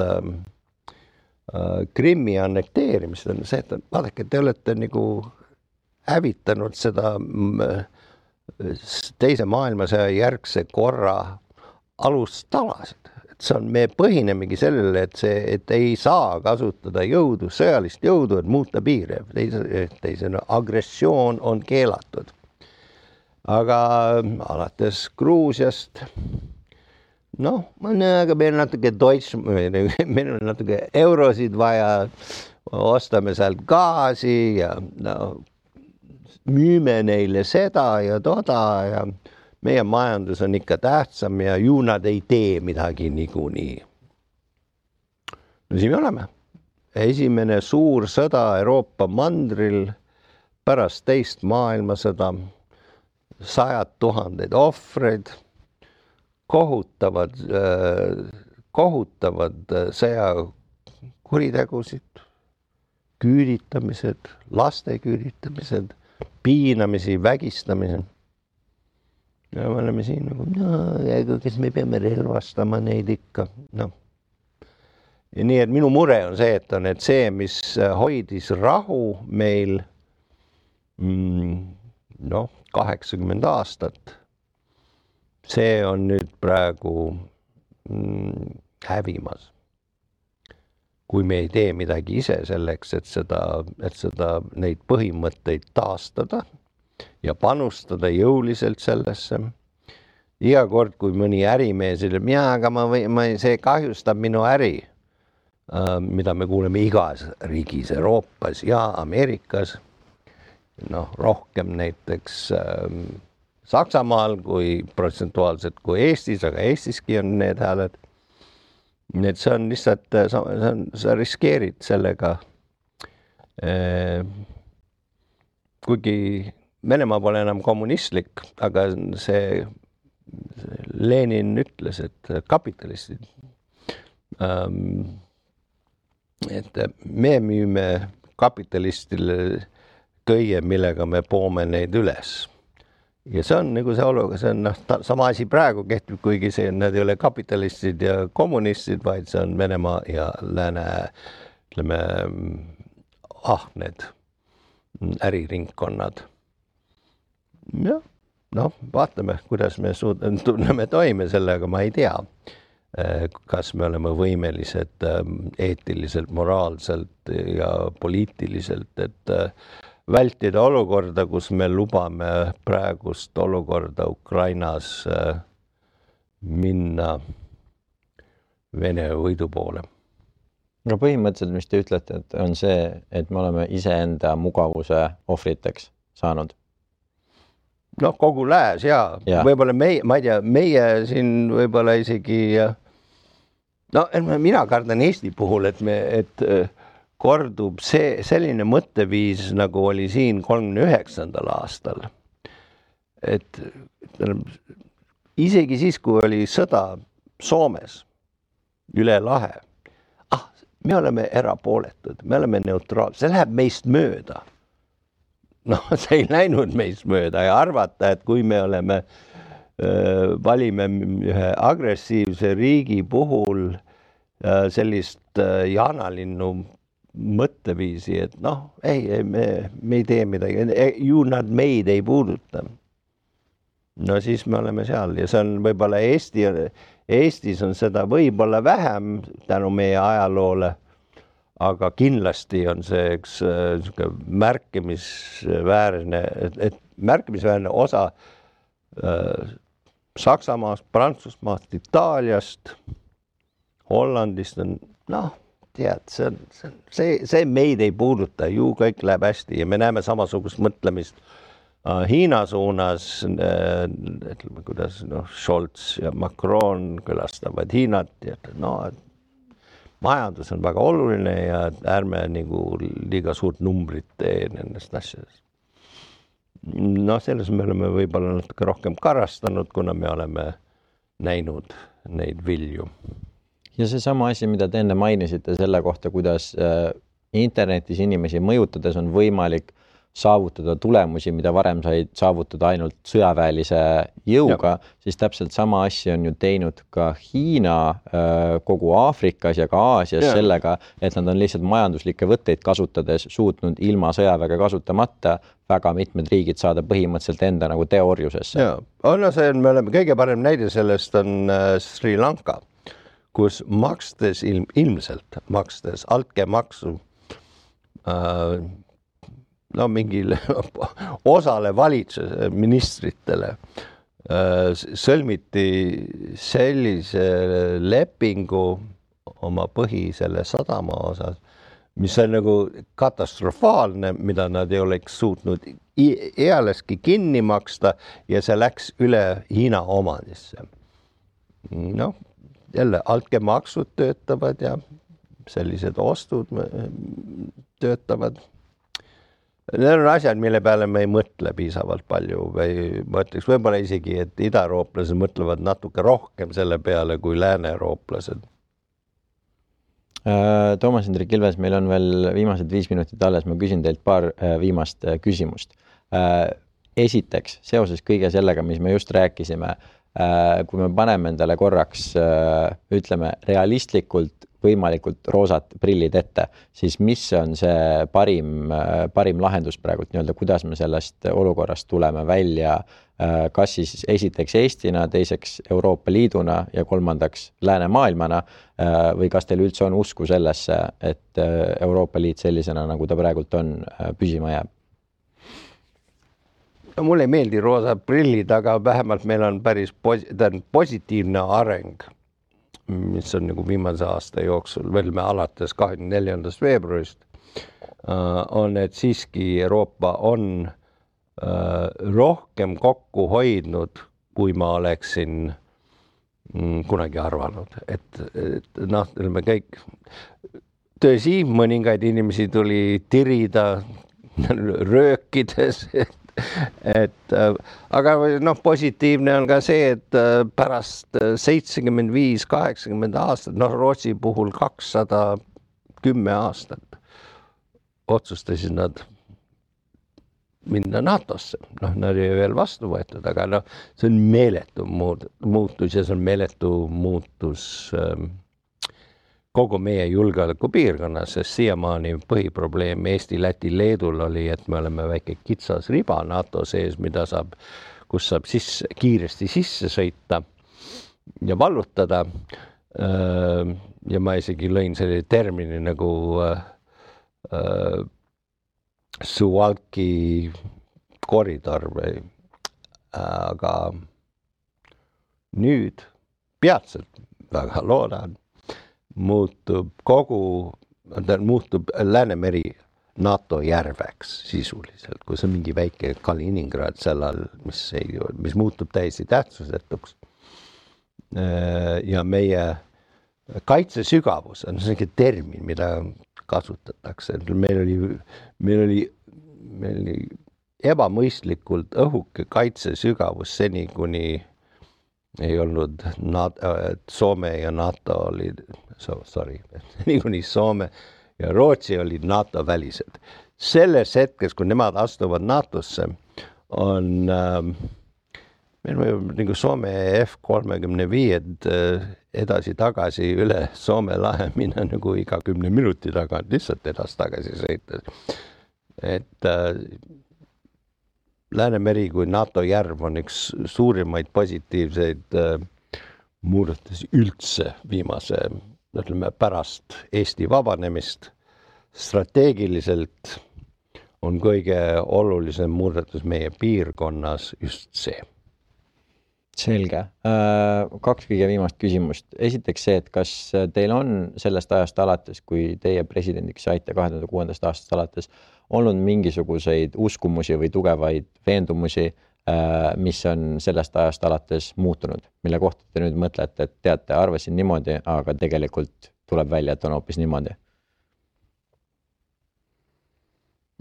Krimmi annekteerimist on see, et vaadake, te olete nagu hävitanud seda teise maailmasõja järgse korra alustalasid. Et see on, me põhinemegi sellele, et ei saa kasutada jõudu, sõjalist jõudu, et muuta piire. Teisena agressioon on keelatud. Aga alates Gruusiast, aga meil on natuke eurosid vaja, ostame sealt gaasi ja müüme neile seda ja toda ja meie majandus on ikka tähtsam ja ju nad ei tee midagi niikuinii. No siin me oleme. Esimene suur sõda Euroopa mandril pärast teist maailmasõda, 100 000 ohvreid, kohutavad sõjakuritegusid, küüditamised, laste küüditamised, piinamisi, vägistamised. Ja me oleme siin nagu, kes me peame relvastama neid ikka. Ja nii, et minu mure on see, et see, mis hoidis rahu meil 80 aastat, see on nüüd praegu hävimas. Kui me ei tee midagi ise selleks, et seda neid põhimõtteid taastada ja panustada jõuliselt sellesse. Iga kord, kui mõni ärimees ütleb, aga see kahjustab minu äri, mida me kuuleme igas riigis, Euroopas ja Ameerikas, rohkem näiteks Saksamaal kui protsentuaalselt kui Eestis, aga Eestiski on need hääled. Nii et see on lihtsalt, sa riskeerid sellega, kuigi Venemaa pole enam kommunistlik, aga see Lenin ütles, et kapitalistid, et me müüme kapitalistile kõige, millega me poome neid üles. Ja see on nagu see oluga, see on sama asi praegu kehtib, kuigi need ei ole kapitalistid ja kommunistid, vaid see on Venemaa ja lääne, ütleme, ahned äriringkonnad. Ja, vaatame, kuidas me tunneme toime sellega, ma ei tea. kas me oleme võimelised eetiliselt, moraalselt ja poliitiliselt, et vältida olukorda, kus me lubame praegust olukorda Ukrainas minna Vene võidu poole. No põhimõtteliselt, mis te ütlete, et on see, et me oleme iseenda mugavuse ohvriteks saanud. No kogu lääs ja. Võib-olla meie, ma ei tea, meie siin võib-olla isegi, no mina kardan Eesti puhul, et kordub selline mõtteviis, nagu oli siin 39. aastal. Et isegi siis, kui oli sõda Soomes üle lahe, me oleme erapooletud, me oleme neutraalsed, see läheb meist mööda. No see ei läinud meist mööda ja arvata, et kui me oleme, valime ühe agressiivse riigi puhul sellist jaanalinnu mõtteviisi, et noh, me ei tee midagi, nad meid ei puuduta. No siis me oleme seal ja see on võib-olla Eestis on seda võib-olla vähem tänu meie ajaloole, aga kindlasti on see üks märkimisväärne osa Saksamaast, Prantsusmaast, Itaaliast, Hollandist on, noh, tead, see meid ei puuduta, ju kõik läheb hästi ja me näeme samasugust mõtlemist Hiina suunas, ütleme, kuidas Scholz ja Macron külastavad Hiinat ja majandus on väga oluline ja ärme nagu liiga suurt numbrit tee nendest asjadest. No selles me oleme võib-olla natuke rohkem karastanud, kuna me oleme näinud neid vilju. Ja see sama asi, mida te enne mainisite selle kohta, kuidas internetis inimesi mõjutades on võimalik saavutada tulemusi, mida varem said saavutada ainult sõjaväelise jõuga, siis täpselt sama asja on ju teinud ka Hiina kogu Aafrikas ja ka Aasias sellega, et nad on lihtsalt majanduslikke võtteid kasutades suutnud ilma sõjaväega kasutamata väga mitmed riigid saada põhimõtteliselt enda nagu teooriusesse. Me oleme kõige parem näide sellest on Sri Lanka, kus ilmselt makstes altkäemaksu mingile osale valitsuse ministritele sõlmiti sellise lepingu oma selle sadama osas, mis on nagu katastrofaalne, mida nad ei oleks suutnud ealeski kinni maksta ja see läks üle Hiina omandisse. No, jälle altkäemaksud töötavad ja sellised ostud töötavad. Need on asjad, mille peale me ei mõtle piisavalt palju või mõtleks võib-olla isegi, et idaeurooplased mõtlevad natuke rohkem selle peale kui lääne-eurooplased. Toomas Hendrik Ilves, meil on veel viimased 5 minutit alles, ma küsin teilt paar viimast küsimust. Esiteks, seoses kõige sellega, mis me just rääkisime, kui me paneme endale korraks, ütleme, realistlikult võimalikult roosat prillid ette, siis mis on see parim lahendus praegult, kuidas me sellest olukorrast tuleme välja, kas siis esiteks Eestina, teiseks Euroopa Liiduna ja kolmandaks läänemaailmana või kas teil üldse on usku sellesse, et Euroopa Liit sellisena, nagu ta praegult on, püsima jääb? Mulle ei meeldi roosad prillid, aga vähemalt meil on päris positiivne areng, mis on nagu viimase aasta jooksul, veel me alates 24. veebruarist, on, et siiski Euroopa on rohkem kokku hoidnud, kui ma oleksin kunagi arvanud. Et me kõik, tõsi, mõningaid inimesi tuli tirida röökides, aga positiivne on ka see, et pärast 75-80 aastat, Rootsi puhul 210 aastat otsustasid nad minna NATO-sse. Nad ei veel vastu võetud, aga see on meeletu muutus ja see on meeletu muutus kogu meie julgeolekupiirkonnas, sest siiamaani põhiprobleem Eesti, Läti, Leedul oli, et me oleme väike kitsas riba NATO sees, kus saab kiiresti sisse sõita ja vallutada. ja ma isegi lõin selle termini nagu Suwalki koridor või, aga nüüd peatselt, väga loodan, muutub Läänemeri NATO järveks sisuliselt, kus on mingi väike Kaliningrad seal all, mis muutub täiesti tähtsusetuks. Ja meie kaitsesügavus on selline termin, mida kasutatakse. Meil oli ebamõistlikult õhuke kaitsesügavus seni, kuni ei olnud Soome ja NATO olid, seni kuni Soome ja Rootsi olid NATO välised. Selles hetkes, kui nemad astuvad NATOsse, on meil võib nagu Soome F-35 edasi-tagasi üle Soome lahe minna nagu iga 10 minuti tagant lihtsalt edasi-tagasi sõita. Et Läänemeri kui NATO järv on üks suurimaid positiivseid muudatusi üldse viimase, ütleme, pärast Eesti vabanemist. Strateegiliselt on kõige olulisem muudatus meie piirkonnas just see. Selge. 2 kõige viimast küsimust. Esiteks see, et kas teil on sellest ajast alates, kui teie presidendiks saite 2006. aastast alates, olnud mingisuguseid uskumusi või tugevaid veendumusi, mis on sellest ajast alates muutunud, mille kohta te nüüd mõtlete, et teate, arvasin niimoodi, aga tegelikult tuleb välja, et on hoopis niimoodi?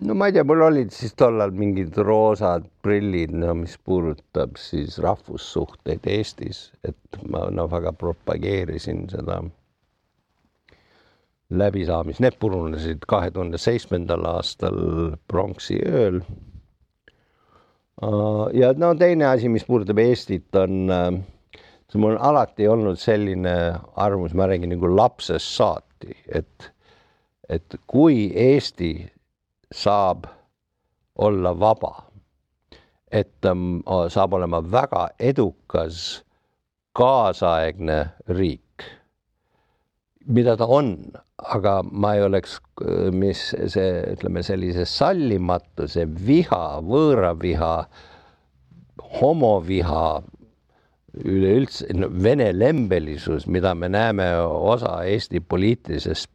No ma ei tea, mul olid siis tollal mingid roosad prillid, mis puudutab siis rahvussuhteid Eestis, et ma väga propageerisin seda läbisaamist. Need purunesid 2007. aastal pronksi ööl. Ja teine asi, mis puudutab Eestit, on, mul on alati olnud selline arvamus, ma räägin nagu lapsest saati, et kui Eesti saab olla vaba, et ta saab olema väga edukas kaasaegne riik, mida ta on, aga ma ei oleks, sellise sallimatuse, viha, võõraviha, homoviha, üleüldse vene lembelisus, mida me näeme osa Eesti poliitilisest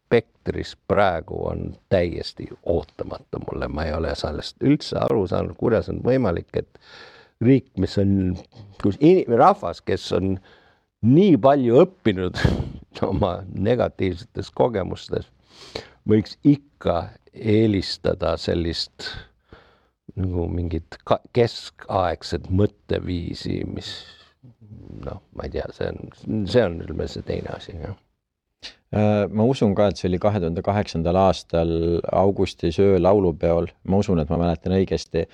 spektris praegu, on täiesti ootamatu mulle. Ma ei ole sellest üldse aru saanud, kuidas on võimalik, et riik, mis on rahvas, kes on nii palju õppinud oma negatiivsetes kogemustes, võiks ikka eelistada sellist nagu mingit keskaegset mõtteviisi, mis ma ei tea, see on see teine asi, jah. Ma usun ka, et see oli 2008. aastal augustis öö laulupeol. Ma usun, et ma mäletan õigesti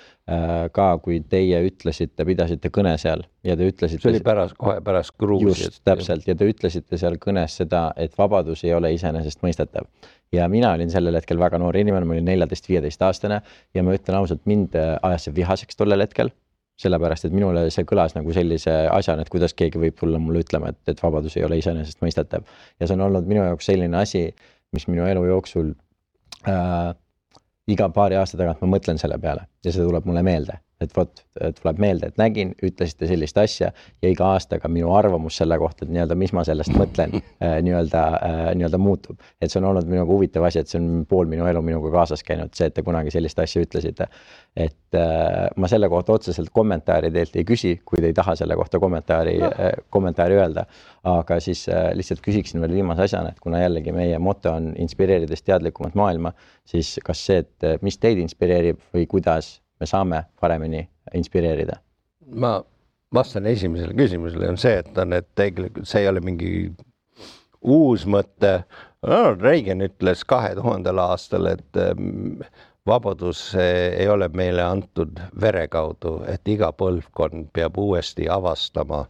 ka, kui teie ütlesite, pidasite kõne seal ja te ütlesite... See oli kohe pärast Gruusiat. Just, täpselt. Ja te ütlesite seal kõnes seda, et vabadus ei ole iseenesest mõistetav. Ja mina olin sellel hetkel väga noor inimene, ma olin 14-15 aastane ja ma ütlen ausalt, mind ajas see vihaseks tollel hetkel. Sellepärast, et minule see kõlas nagu sellise asjana, et kuidas keegi võib tulla mulle ütlema, et vabadus ei ole iseenesest mõistetav. Ja see on olnud minu jaoks selline asi, mis minu elu jooksul iga paari aasta tagant ma mõtlen selle peale ja see tuleb mulle meelde. Et tuleb meelde, et nägin, ütlesite sellist asja ja iga aastaga minu arvamus selle kohta, et mis ma sellest mõtlen, nii-öelda muutub. Et see on olnud minuga huvitav asi, et see on pool minu elu minuga kaasas käinud, see, et te kunagi sellist asja ütlesite. Et ma selle kohta otseselt kommentaari teilt ei küsi, kui te ei taha selle kohta kommentaari öelda. Aga siis lihtsalt küsiksin veel viimase asjana, et kuna jällegi meie moto on inspireerides teadlikumat maailma, siis kas see, et mis teid inspireerib või kuidas me saame paremini inspireerida? Ma vastan esimesele küsimusele on see, et tegelikult see ei ole mingi uus mõte. Reagan ütles 2000. aastal, et vabadus ei ole meile antud vere kaudu, et iga põlvkond peab uuesti avastama,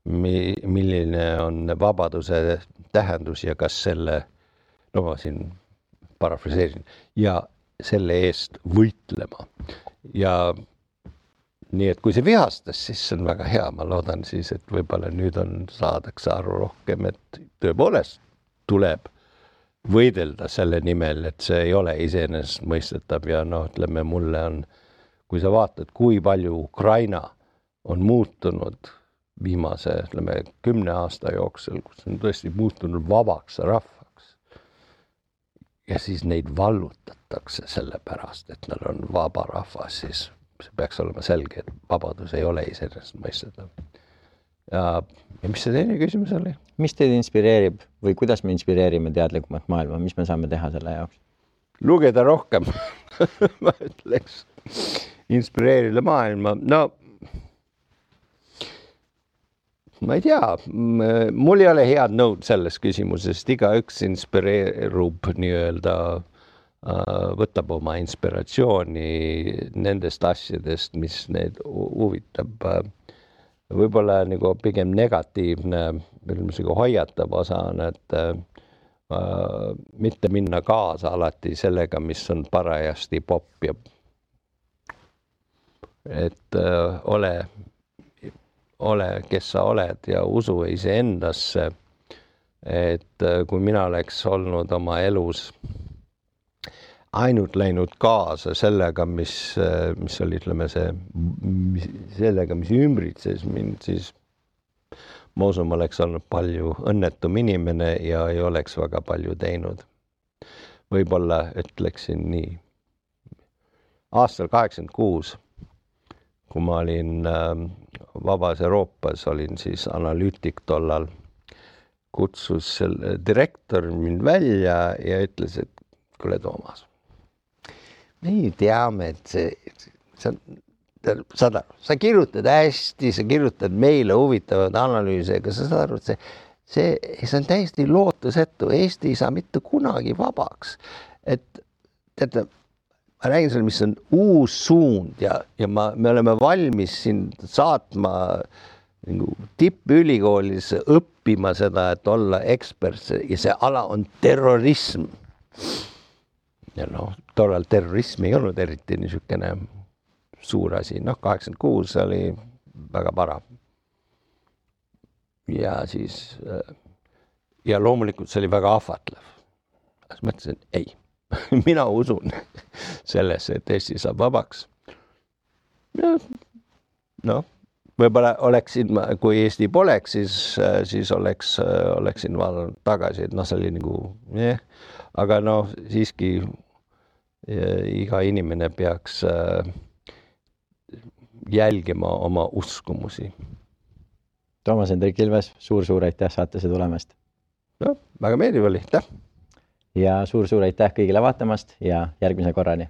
milline on vabaduse tähendus ja kas selle, ma siin parafraseerin, ja selle eest võitlema. Ja nii et kui see vihastas, siis see on väga hea, ma loodan siis, et võib-olla nüüd saadakse aru rohkem, et tõepoolest tuleb võidelda selle nimel, et see ei ole iseenesestmõistetav ja ütleme, mulle on, kui sa vaatad, kui palju Ukraina on muutunud viimase, 10 aasta jooksul, kus on tõesti muutunud vabaks rahvaks ja siis neid vallutatakse selle pärast, et nad on vaba rahvas, siis see peaks olema selge, et vabadus ei ole iseenesestmõistetav. Ja mis see teine küsimus oli? Mis teid inspireerib või kuidas me inspireerime teadlikumat maailma? Mis me saame teha selle jaoks? Lugeda rohkem, ma ütleks. Inspireerida maailma. No, ma ei tea. Mul ei ole head nõud selles küsimusest. Igaüks inspireerub nii-öelda, võtab oma inspiratsiooni nendest asjadest, mis neid huvitab. Võib-olla nagu pigem negatiivne, hoiatav osa on, et mitte minna kaasa alati sellega, mis on parajasti popp ja et ole, kes sa oled ja usu iseendasse, et kui mina oleks olnud oma elus ainult läinud kaasa sellega, mis oli, ütleme, sellega, mis ümbritses mind, siis ma usun, ma oleks olnud palju õnnetum inimene ja ei oleks väga palju teinud. Võib-olla ütleksin nii. Aastal 86, kui ma olin Vabas Euroopas, olin siis analüütik tollal, kutsus direktor mind välja ja ütles, et kuule, Toomas, me teame, et sa kirjutad hästi, sa kirjutad meile huvitavad analüüse, aga sa saad aru, et see on täiesti lootusetu. Eesti ei saa mitte kunagi vabaks. Et teate, ma räägin selle, mis on uus suund ja me oleme valmis sind saatma tippülikoolis õppima seda, et olla ekspert ja see ala on terrorism. Ja tollal terrorism ei olnud eriti niisugune suur asi. 86 oli väga para. Ja siis, ja loomulikult see oli väga ahvatlev. Siis mõtlesin, ei, mina usun sellesse, et Eesti saab vabaks. Võib-olla oleksin, kui Eesti poleks, siis oleksin vaadanud tagasi, et see oli nagu, aga siiski iga inimene peaks jälgima oma uskumusi. Toomas Hendrik Ilves, suur aitäh saatesse tulemast. Väga meeldiv oli, aitäh. Ja suur aitäh kõigile vaatamast ja järgmise korrani.